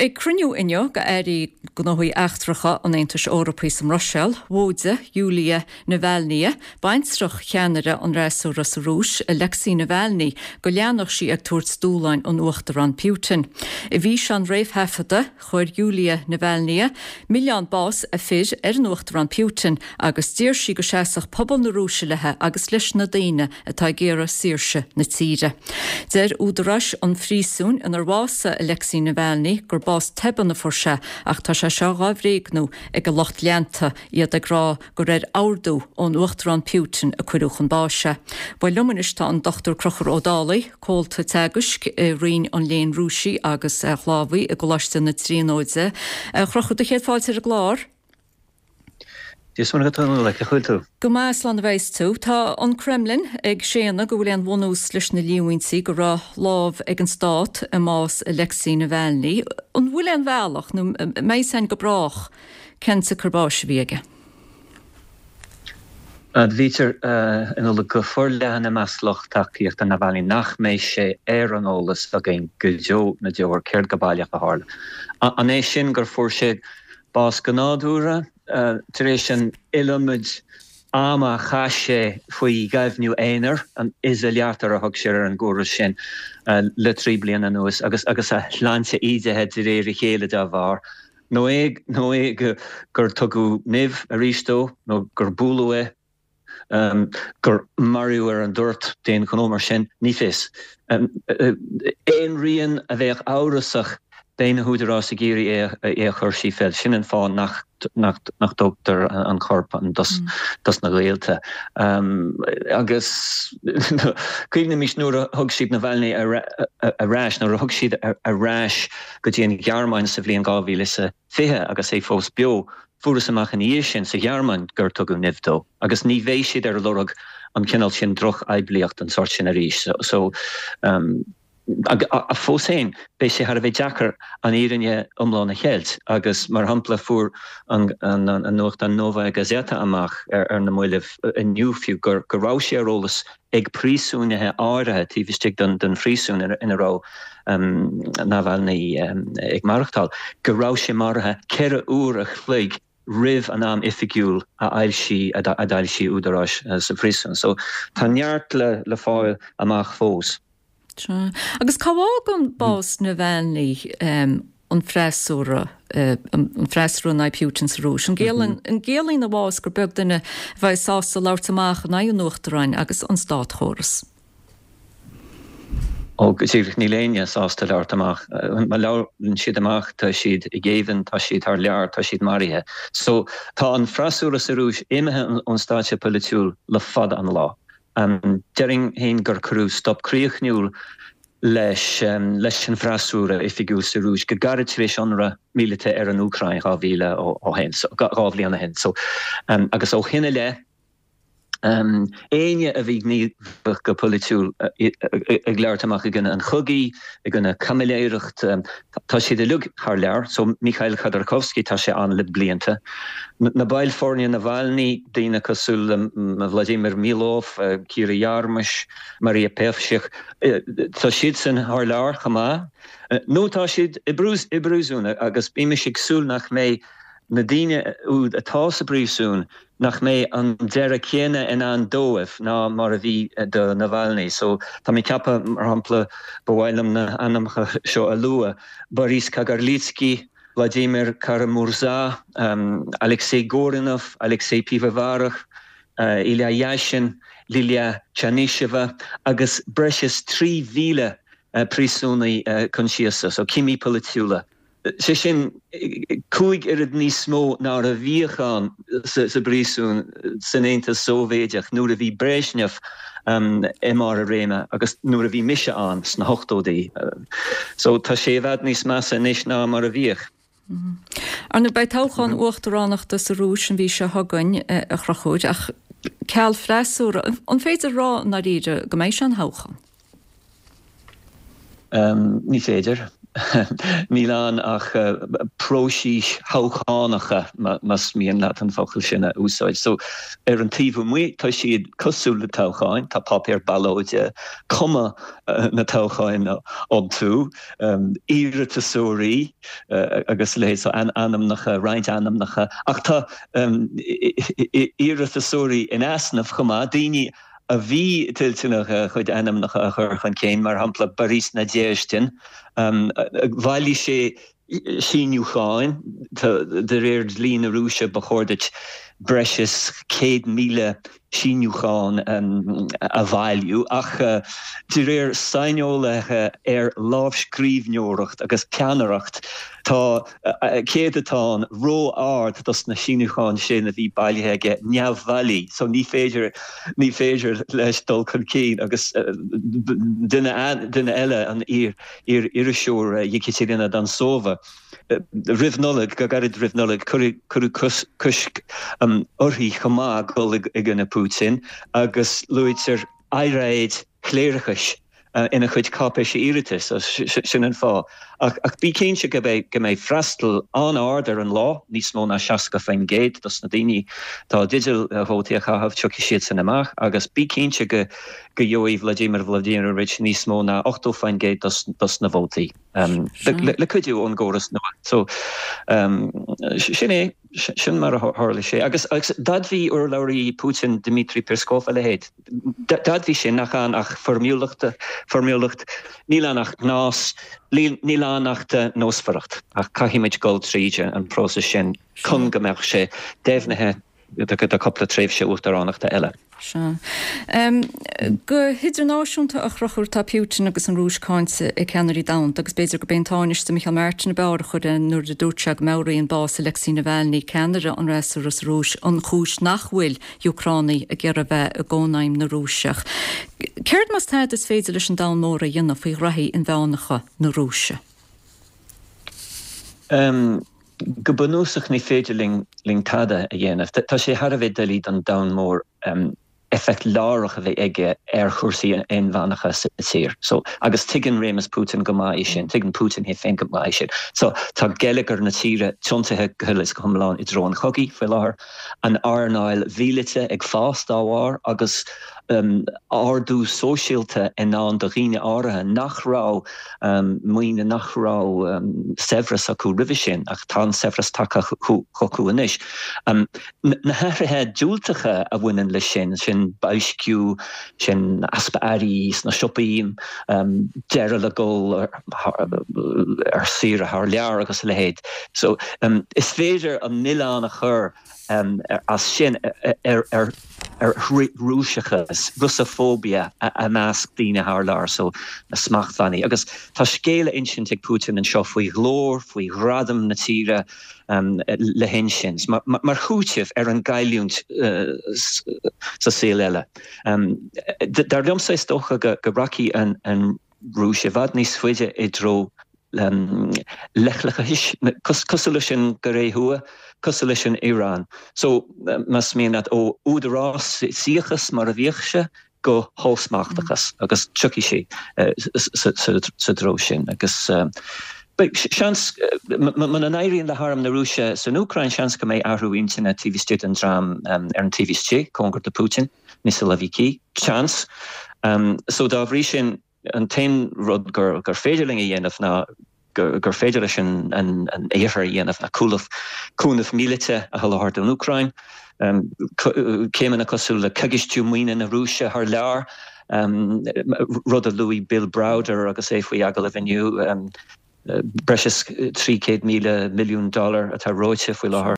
Ag cruinniú inniu d'airí gnóthaí eachtracha an Aontais Eorpaigh sa mBruiséil, mhóidigh Yulia Navalnaya, baintreach cheannaire an fhreasúra sa Rúis, Alexei Navalny, go leanfadh sí ag tabhairt dúshláin an Uachtaráin Putin. I bhfíseán réamhthaifeadta, Chuir Yulia Navalnaya milleán bás a fir ar an Uachtarán Putin agus d'iarr sí go seasfadh pobal na Rúise léi agus leis na daoine atá ag iarraidh saoirse na tíre. Deir údaráis an phríosúin inar bhásaigh Alexei Navalny gur bás tobann a fuair sé ach tá sé seo dhá bhréagnú ag a lucht leanta, iad ag rá gur ar ordú ón Uachtarán Putin a cuireadh chun báis é. Bhuel liom anois tá an Dr Conchúr Ó Dálaigh, Comhalta Teagaisc i Roinn an Léinn Rúisigh agus Shlávaigh i gColáiste na Tríonóide. A Chonchúir, do chéad fáilte ar an gclár. Dia is Muire dhuit a Nuala, cén chaoi a bhfuil tú? Go maith, slán a bheas tú. Tá an Kremlin ag séanadh go bhfuil aon bhunús leis na líomhaintí go raibh lámh ag an stát i mbás Alexei Navalny. An bhfuil aon bhealach, nó an mbeidh a fhios againn go brách, cén tsiocair báis a bhí aige? Admhaítear a Nuala go forleathan i measc lucht tacaíochta Navalny nach mbeidh sé ar an eolas againn go deo na ndeor céard go baileach a tharla. An é sin gur fuair sé bás go nádúrtha tar éis an iliomad ama a chaith sé faoi ghaibhniú aonair, an izolyator a thug siad ar an gcóras sin, le 3 bliana anuas agus a shláinte ídithe de réir a chéile dá bharr? Nó é nó é gur tugadh nimh arís dó, nó gur buaileadh é, gur maraíodh ar an dtoirt d'aon ghnó mar sin, ní fios. Aon rian a bheadh amhrasach, beidh na húdaráis ag iarraidh é a chur síos. Sin an fáth nach nach dtugtar an corp dos na gaolta. Agus cuimhnímis nuair a thug siad Navalny ar ais, nuair a thug siad ar ais go dtí an Ghearmáin sa bhliain 2020 agus é fós beo. Fuarthas amach ina dhiaidh sin sa Ghearmáin gur tugadh nimh dó agus ní bheidh siad ar lorg an cineál sin drochphoiblíocht den sórt sin arís. So, ach fós féin, beidh sé thar a bheith deacair an fhírinne iomlán a cheilt agus, mar shampla, fuair an nuachtán Novaya Gazeta amach ar na mallaibh inniu fiú go raibh sé ar eolas ag príosúnaithe áirithe taobh istigh den phríosún ina raibh Navalny ag maireachtáil, go raibh sé maraithe 4 uair a chloig roimh an am oifigiúil a fhoilsigh a d'fhoilsigh údaráis sa phríosún. So tá neart le fáil amach fós. Sea. Agus cá bhfágann bás Navalny an freasúra, an freasúra in aghaidh Putin sa Rúis? An gciallaíonn a bhás gur beag duine a bheidh sásta labhairt amach in aghaidh an Uachtaráin agus an státchóras? Ó, go díreach, níl éinne sásta labhairt amach. Má labhrann siad amach, tá siad i ngéibheann, tá siad thar lear, tá siad maraithe. So, tá an freasúra sa Rúis imithe ón stáitse polaitiúil le fada an lá. Déarfainn féin gur cuireadh stop críochnúil leis leis an bhfreasúra oifigiúil sa Rúis go gairid tar éis ionradh míleata ar an Úcráin 2000 ó shin, 2 bhliain ó shin. So, agus ó shin i leith, éinne a bhí gníomhach go polaitiúil ag labhairt amach i gcoinne an chogaidh, i gcoinne caimiléireacht, tá siad uilig thar lear. So, Mikhail Khodorkovsky, tá sé ann le blianta. Na baill foirne Navalny, daoine cosúil le Vladimir Milov, Kira Yarmysh, Maria Pevchikh, tá siadsan thar lear chomh maith. Nó tá siad i bpríosún agus bímis ag súil nach mbeidh na daoine úd atá sa bpríosún, nach mbeidh an deireadh céanna i ndán dóibh ná mar a bhí do Navalny. So, tá mé ag ceapadh, mar shampla, ba mhaith liom na hainmneacha seo a lua, Boris Kagarlitsky, Vladimir Kara-Murza, Alexei Gorinov, Alexei Pivovarov, Ilya Yashin, Lilia Chanysheva agus breis is 3,000 príosúnaí coinsiasa, so cimí polaitiúla. Sé sin, 5 oiread níos mó ná a bhíodh ann sa bpríosún san Aontas Sóivéideach nuair a bhí Brezhnev i mbarr a réime agus nuair a bhí mise ann sna hochtóidí. So tá sé i bhfad níos measa anois ná mar a bhíodh. Ar ndóigh, beidh toghchán uachtaránachta sa Rúis an mhí seo chugainn, a Chonchúir, ach ceal freasúra, an féidir a rá i ndáiríre go mbeidh sé ina thoghchán? Ní féidir. Níl ann ach próisis thoghchánacha, más mian leat an focal sin a úsáid. So, ar an taobh amuigh, tá siad cosúil le toghcháin, tá páipéar ballóide, cuma na toghcháin iontu, iarratasóirí agus a leithéid, so ainmneacha, roinnt ainmneacha, ach tá iarratasóirí in easnamh chomh maith, daoine a bhí toilteanach a chuid ainmneacha a chur chun cinn, mar shampla Boris Nadezhdin, bhailigh sé síniúcháin, de réir dlí na Rúise ba chóir duit breis is 100,000 síniúchán a bhailiú, ach de réir saineolaithe ar lámhscríbhneoireacht agus peannaireacht, tá céadatán ró-ard dos na síniúcháin sin a bhí bailithe aige neamhbhailí, so ní féidir, ní féidir leis dul chun cinn agus duine, duine eile, an iar-iriseoir Yekaterina Dontsova, Roimh Nollaig, go gairid roimh Nollaig, cuireadh cosc uirthi chomh maith dul i gcoinne Putin agus luaitear earráid chléireachais ina chuid cáipéise iarratais, sin an fáth. Ach bí cinnte go mbeidh freastal an-ard ar an lá, níos mó ná 60% dos na daoine atá i dteideal vótaí a chaitheamh, tiocfaidh siadsan amach agus bí cinnte go gheobhaidh Vladimir Vladimirovich níos mó ná 80% dos na vótaí. Le cuidiú ón gcóras nua. So, sin é, sin mar a tharla sé. Agus d'admhaigh urlabhraí Putin, Dmitry Peskov, a leithéid. D'admhaigh sé nach ann ach foirmiúlacht, foirmiúlacht, níl ann ach gnás, níl ann ach nósmhaireacht. Ach caithfimid dul tríd an próiseas sin chun go mbeadh sé deimhnithe. do cúpla tréimhse uachtaránachta eile. Sea. Go hidirnáisiúnta, a Chonchúir, tá Putin agus an Rúis cáinte ag ceannairí domhanda agus b'fhéidir gurb é an Tánaiste Micheál Martin ab fhearr a chuir é nuair a dúirt sé go meabhraíonn bás Alexei Navalny, ceannaire an fhreasúra sa Rúis, an chúis nach bhfuil Úcránaigh ag iarraidh bheith i gCónaidhm na Rúiseach. Céard más tada is féidir leis an domhan mór a dhéanamh faoi ghraithí inmheánacha na Rúise? Go bunúsach ní féidir linn tada a dhéanamh. Tá sé thar a bheith doiligh don domhan mór éifeacht láithreach a bheith aige ar chúrsaí inmheánacha sa tír. So, agus tuigeann réimeas Putin go maith é sin, tuigeann Putin é féin go maith é sin. So, tá geilleagar na tíre tiontaithe go huile is go hiomlán i dtreo an chogaidh faoi láthair, an earnáil mhíleata ag fás dá bharr agus ardú sóisialta i ndán do dhaoine áirithe nach raibh maoine, nach raibh saibhreas acu roimhe sin, ach tá an saibhreas tagtha chucu anois. Na hathruithe diúltacha a bhaineann leis sin, sin boilsciú, sin easpa earraí sna siopaí, deireadh le dul ar saoire thar lear agus a leithéid. So, is féidir an milleán a chur as sin ar Rúiseachas, Russophobia, i measc daoine thar lear, so na smachtbhannaí. Agus tá scéal a insint ag Putin anseo faoi ghlóir, faoi ghradam na tíre le hinsint, mar chúiteamh ar an gcailliúint sa saol eile. Dar liomsa, is dócha go rachaidh an Rúis i bhfad níos faide i dtreo leithleachais, cosúil leis an gCóiré Thuaidh, cosúil leis an Iaráin. So, más mian leat, ó údarásaíochas mar a bhíodh sé go hollsmachtachas agus tiocfaidh sé sa treo sin. Agus beidh seans, muna n-éiríonn le harm na Rúise san Úcráin, seans go mbeidh athrú intinne taobh istigh den dream ar an taobh istigh, cóngar do Putin, na siloviki, seans. So, dá bhrí sin, An t-aon rud gur féidir linn a dhéanamh ná gur féidir leis an Iarthar a dhéanamh ná cúnamh míleata a sholáthar don Úcráin, céimeanna cosúil le coigistiú maoine na Rúise thar lear, rud a luaigh Bill Browder agus é faoi agallamh inniu, breis is 300,000 milliún dollar atá reoite faoi láthair.